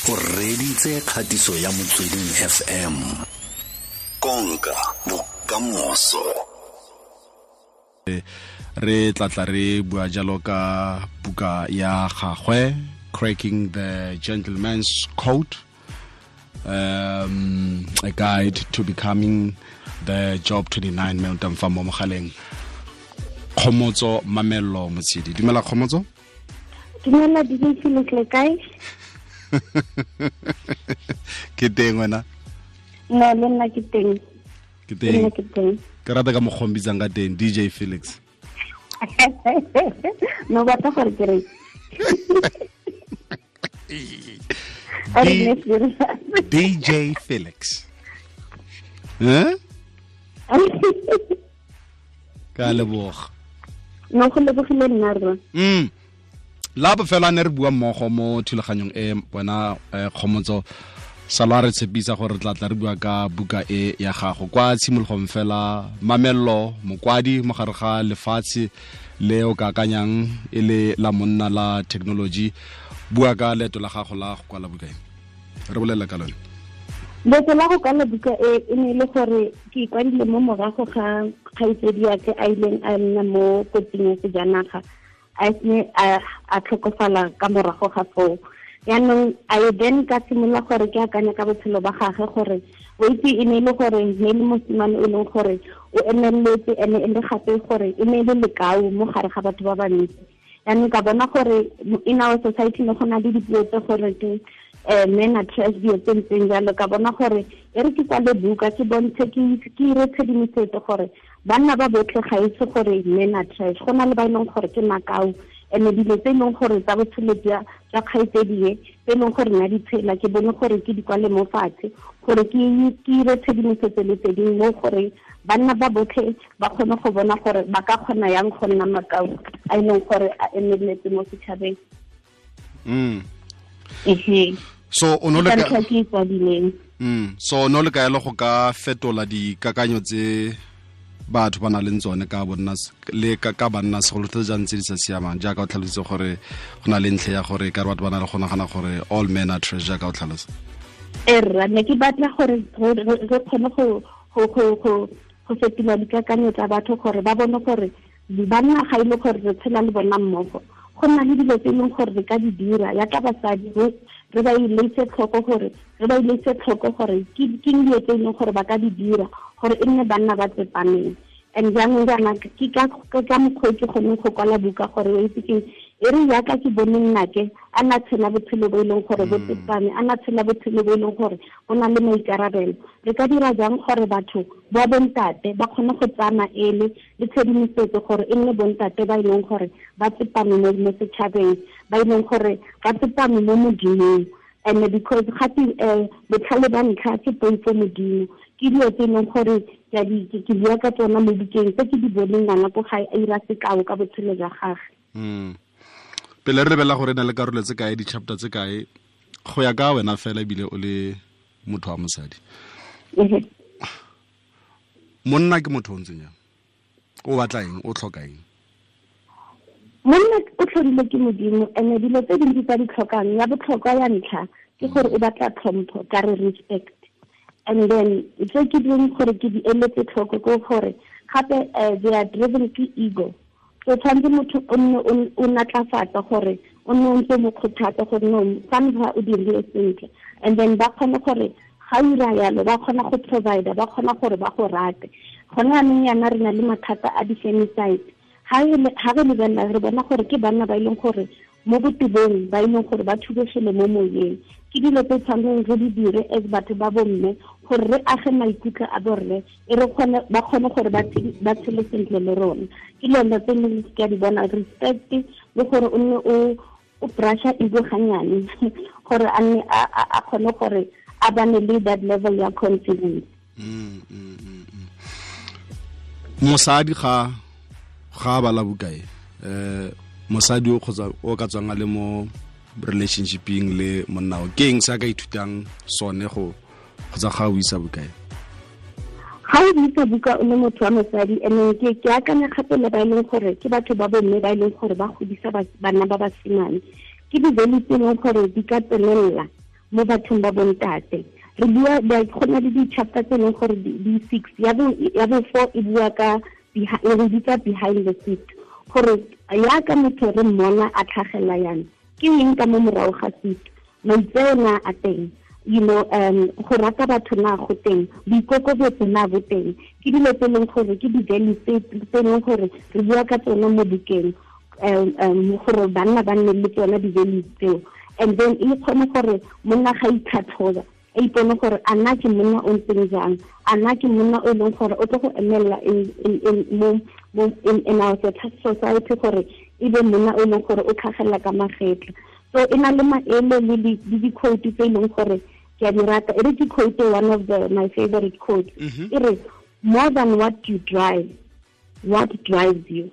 O reditse kgatiso ya Motsweding FM. Konka bokamoso. Re tlatla re bua jalo ka buka ya gagwe, Cracking the Gentleman's Code, a guide to becoming the Job 29 me o fa mo mogaleng. Kgomotso Mamello Motshidi. Dumela Kgomotso. Dumela DJ Felix, le kae? Ke teng wena? No, le nna ke teng. Ke teng. Ke rata ka mokgwa o mbitsang ka teng, DJ Felix. No batla gore ke re. DJ Felix. Eh? Ka leboga. No go lebogile nna rra. La bofelo a ne re bua mmogo mo thulaganyong e wena Kgomotso, sala re tshepisa gore re tla tla re bua ka buka e ya gago kwa tshimologong fela. Mamello mokwadi mo gare ga lefatshe le o ka akanyang e le la monna la technology, bua ka leeto la gago la go kwala buka e, re bolela ka lone. Leeto la go kwala buka e e ne le gore ke ikwadile mo morago ga kgaitsedi ya ke a ileng a nna mo kotsing ya sejanaga, a ne a tlhokofala ka morago ga foo. Yaanong I then ka simolola gore ke akanya ka botshelo ba gagwe gore o itse e ne e le gore ne le mosimane o leng gore o emeletse, ene e le gape gore e ne e le lekau mo gare ga batho ba bantsi. Yaanong ka bona gore in our society ne go na le dipuo tse gore ke men are trash, dilo tse ntseng jalo. Ka bona gore e re ke kwale buka ke bontshe ke ire tshedimosetso gore banna ba botlhe ga itse gore men are trash, go na le ba e leng gore ke makau, ene dilo tse e leng gore tsa botshelo jwa kgaitsedi e tse e leng gore nna di tshela, ke bone gore ke di kwale mo fatshe gore ke ire tshedimosetso le tse dingwe mo gore banna ba botlhe ba kgone go bona gore ba ka kgona yang go nna makau a e leng gore a emeletse mo setšhabeng. So o no le ka ke kwadileng. So no le ka elo go ka fetola dikakanyo tse batho ba na leng tsone ka bonna le ka banna segolo tse jang tse di sa siamang, jaaka o tlhalositse gore go na le ntlha ya gore ka re batho ba na le go nagana gore all men are trash, jaaka o tlhalosa. Erra ne ke batla gore re kgone go fetola dikakanyo tsa batho gore ba bone gore banna ga ile gore re tshela le bona mmogo, go nna le dilo tse e leng gore re ka di dira yaka basadi re ba iletse tlhoko gore re ba iletse tlhoko gore ke dilo tse e leng gore ba ka di dira gore e nne banna ba tsepameng. And jaanong jaana ke ka mokgwa ke kgoneng go kwala buka gore o itse ke e re yaka ke bone nnake a na tshela botshelo bo e leng gore bo tsepame, a na tshela botshelo bo e leng gore o na le maikarabelo. Re ka dira jang gore batho ba bontate ba kgone go tsaya maele le tshedimosetso gore e nne bontate ba e leng gore ba tsepame mo setšhabeng, ba e leng gore ba tsepame mo Modimong. And because gape botlhale ba ntlha ke poifo Modimo, ke dilo tse e leng gore ke bua ka tsona mo bukeng tse ke di boneng ngwana ko gae a ira sekao ka botshelo jwa gagwe. Pele re lebelela gore e na le karolo tse kae, di-chapter tse kae, go ya ka wena fela ebile o le motho wa mosadi, monna ke motho o ntseng jang? O batla eng? O tlhoka eng? Monna o tlhodilwe ke Modimo, ene dilo tse dintsi tsa di tlhokang, ya botlhokwa ya ntlha ke gore o batla tlhompho, ka re respect. And then tse ke ding gore ke di eletse tlhoko ke gore gape they are driven ke ego. So tshwanetse motho o nne o natlafatsa gore o nne o ntse mo kgothatsa gore no fa ntlha o dirile sentle, and then ba kgone gore ga o ira yalo ba kgona go provide, ba kgona gore ba go rate. Gone jaanong yana re na le mathata a di-femicide. Ha re lebelela re bona gore ke banna ba e leng gore mo botebong ba e leng gore ba thubegile mo moyeng. Ke dilo tse tshwanetseng re di dire as batho ba bomme gore re age maikutlo a borre, e re kgone ba kgone gore ba tshele sentle le rona. Ke dilo tse leng ke a di bona, respect le gore o nne o brusha ego ganyane gore a nne a kgone gore a bane le that level ya confidence. Mosadi ga bala buka e, mosadi o kgotsa o ka tswang a le mo relationshipeng le monna o, ke eng se a ka ithutang sone go kgotsa ga o isa buka e? Ga o buisa buka o le motho wa mosadi, ene ke akanya gape le ba e leng gore ke batho ba bomme ba e leng gore ba godisa bana ba basimane, ke di-value tse e leng gore di ka tsenelela mo bathong ba bontate. Re bua go na le di-chapter tse e leng gore di 6, ya bo 4 e bua ka re bitsa behind the seat, gore yaka motho re mmona a tlhagelela yana, ke eng ka mo morago ga seat, maitseo na a teng, you know, go rata batho na go teng, boikokobetso na bo teng. Ke dilo tse e leng gore ke di-values tse e leng gore re bua ka tsone mo bukeng, gore banna ba nne le tsona di-values tseo. And then e kgone gore monna ga itlhatlhoba, a ipone gore a nna ke monna o ntseng jang, a nna ke monna o e leng gore o tlo go emelela in our society, gore e be monna o e leng gore o tlhagelela ka magetla. So e na le maele le di-quote tse e leng gore ke a di rata. E re ke quote one of my favorite quotes. E re, more than what you drive, what drives you.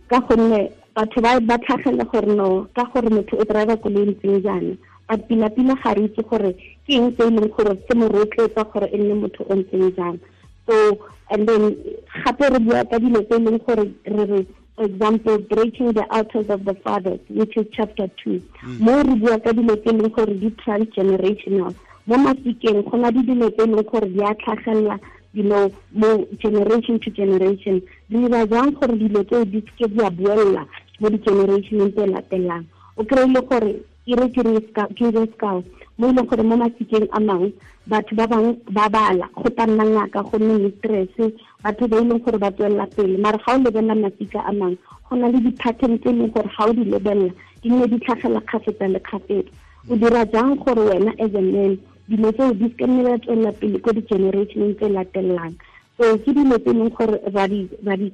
Ka gonne batho ba tlhagelela gore no, ka gore motho o driver koloi ntseng jaana, but pila-pila ga re itse gore ke eng se e leng gore se mo rotloetsa gore e nne motho o ntseng jang. So and then gape re bua ka dilo tse e leng gore re re, for example, breaking the altars of the fathers, which is chapter 2. Mo re bua ka dilo tse e leng gore di transgenerational. Mo masikeng go na le dilo tse e leng gore di a tlhagelela, you know, mo generation to generation. Re dira jang gore dilo tseo di seke di a buella mo di-generationeng tse latelang. O kry-ile gore ke re sekao mo e leng gore mo masikeng a mangwe batho ba bangwe ba bala, go tla nna ngaka, go nne mistress, batho ba e leng gore ba tswelela pele. Mare ga o lebelela masika a mangwe, go na le di-pattern tse e leng gore ga o di lebelela di nne di tlhagela kgafetsa le kgafetsa. O dira jang gore wena as a man dilo tseo di seke nne di tswelela pele ko di-generationeng tse latelang. So ke dilo tse e leng gore ra di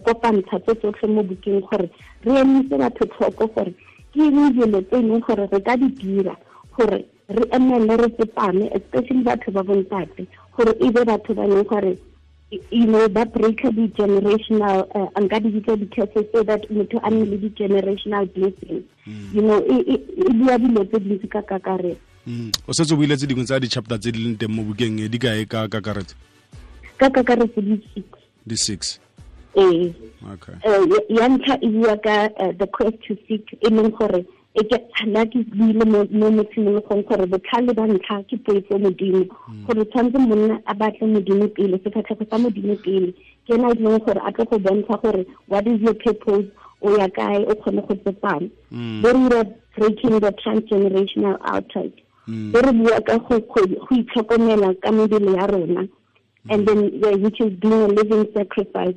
kopantsha tse tsotlhe mo bukeng gore re emise batho tlhoko gore ke eng dilo tse e leng gore re ka di dira gore re emele re tsepame, especially batho ba bontate, gore e be batho ba leng gore, you know, ba break di-generational, nka di bitsa di-curses, so that motho a nne le di-generational blessings. You know, e bua dilo tse dintsi ka kakaretso. O setse o buile tse dingwe tsa di-chapter tse di leng teng mo bukeng e, di kae ka kakaretso? Ka kakaretso di 6. Di 6. Ee. Okay. Ya ntlha e bua ka the quest to seek, e leng gore e ke nna ke buile mo tshimologong gore botlhale ba ntlha ke poifo modimo, gore tshwanetse monna a batle modimo pele, sefatlhego sa modimo pele, ke ena e leng gore a tlo go bontsha gore what is your purpose, o ya kae, o kgone go tsepama. Bo re dira breaking the transgenerational altars. Bo re bua ka go itlhokomela ka mebele ya rona, and then which is being a living sacrifice.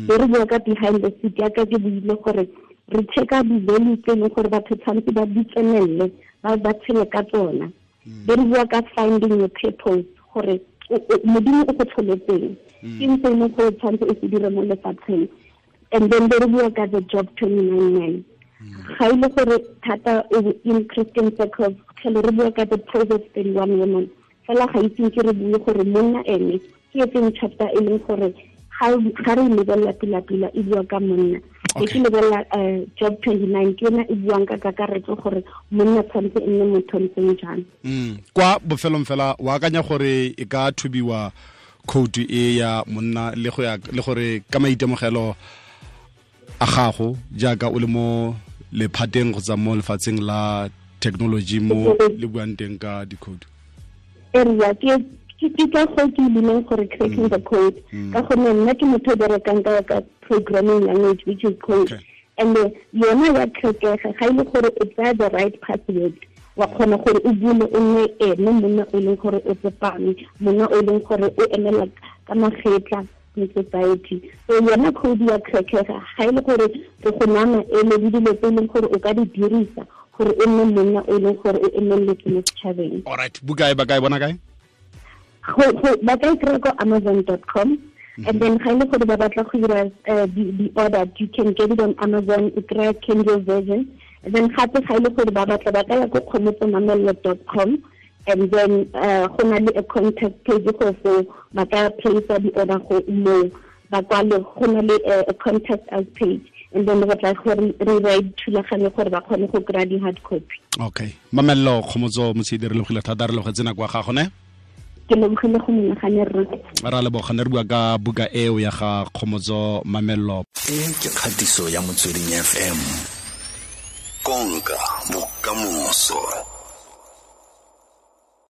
Bo re bua ka behind the seat, yaka ke buile gore re checka di-values tse e leng gore batho tshwanetse ba di tsenelele, ba tshele ka tsona. Be re bua ka finding your purpose, gore modimo o go tlholetseng, ke eng se e leng gore tshwanetse o se dire mo lefatsheng. And then be re bua ka the Job 29:9. Ga e le gore thata in Christian circles, tlhele re bua ka the Proverbs 31 woman. Fela ga itseng ke re bue gore monna ene ke e feng chapter e leng gore ga re lebelela pila-pila e bua ka monna. Ke lebelela Job 29, ke yona e buang ka kakaretso gore monna tshwanetse e nne motho ntseng jang. Kwa bofelong fela, o akanya gore e ka thubiwa khoutu e ya monna le go ya le gore ka maitemogelo a gago jaaka o le mo lephateng kgotsa mo lefatsheng la technology mo le buang teng ka dikhoutu? Area ke ka go ke bileng gore cracking the code, ka gonne nna ke motho o berekang ka programming language, which is code. And yona ya tlhokega ga ile gore o tsaya the right password, wa kgona gore o bule o nne ene monna o leng gore o tsepame, monna o leng gore o emela ka magetla in society. So yona code ya crackega ga ile gore re go nama ele le dilo tse e leng gore o ka di dirisa gore o nne monna o leng gore o emeletse mo setšhabeng. All right, buka e ba kae bona kae? Ba ka e kry-a ko amazon.com. And then ga ile gore ba batla go dira the order, you can get it on Amazon, o kry-a Kindle version. And then gape ga ile gore ba batla ba ka ya ko kgomotsomamello.com, and then go na le a contact page go foo, ba ka place the order go moo, ba kwale go na le a contact us page, and then re tla gore re ba thulaganyo gore ba kgone go kry-a di-hard copy. Okay, Mamello Kgomotso Motshedi, re lebogile thata, re lebogetse nako ya gago ne. Ke lebogile go menagane rre. Ra leboga, ne re bua ka buka eo ya ga Kgomotso Mamello. E ke kgatiso ya Motsweding FM. Konka bokamoso.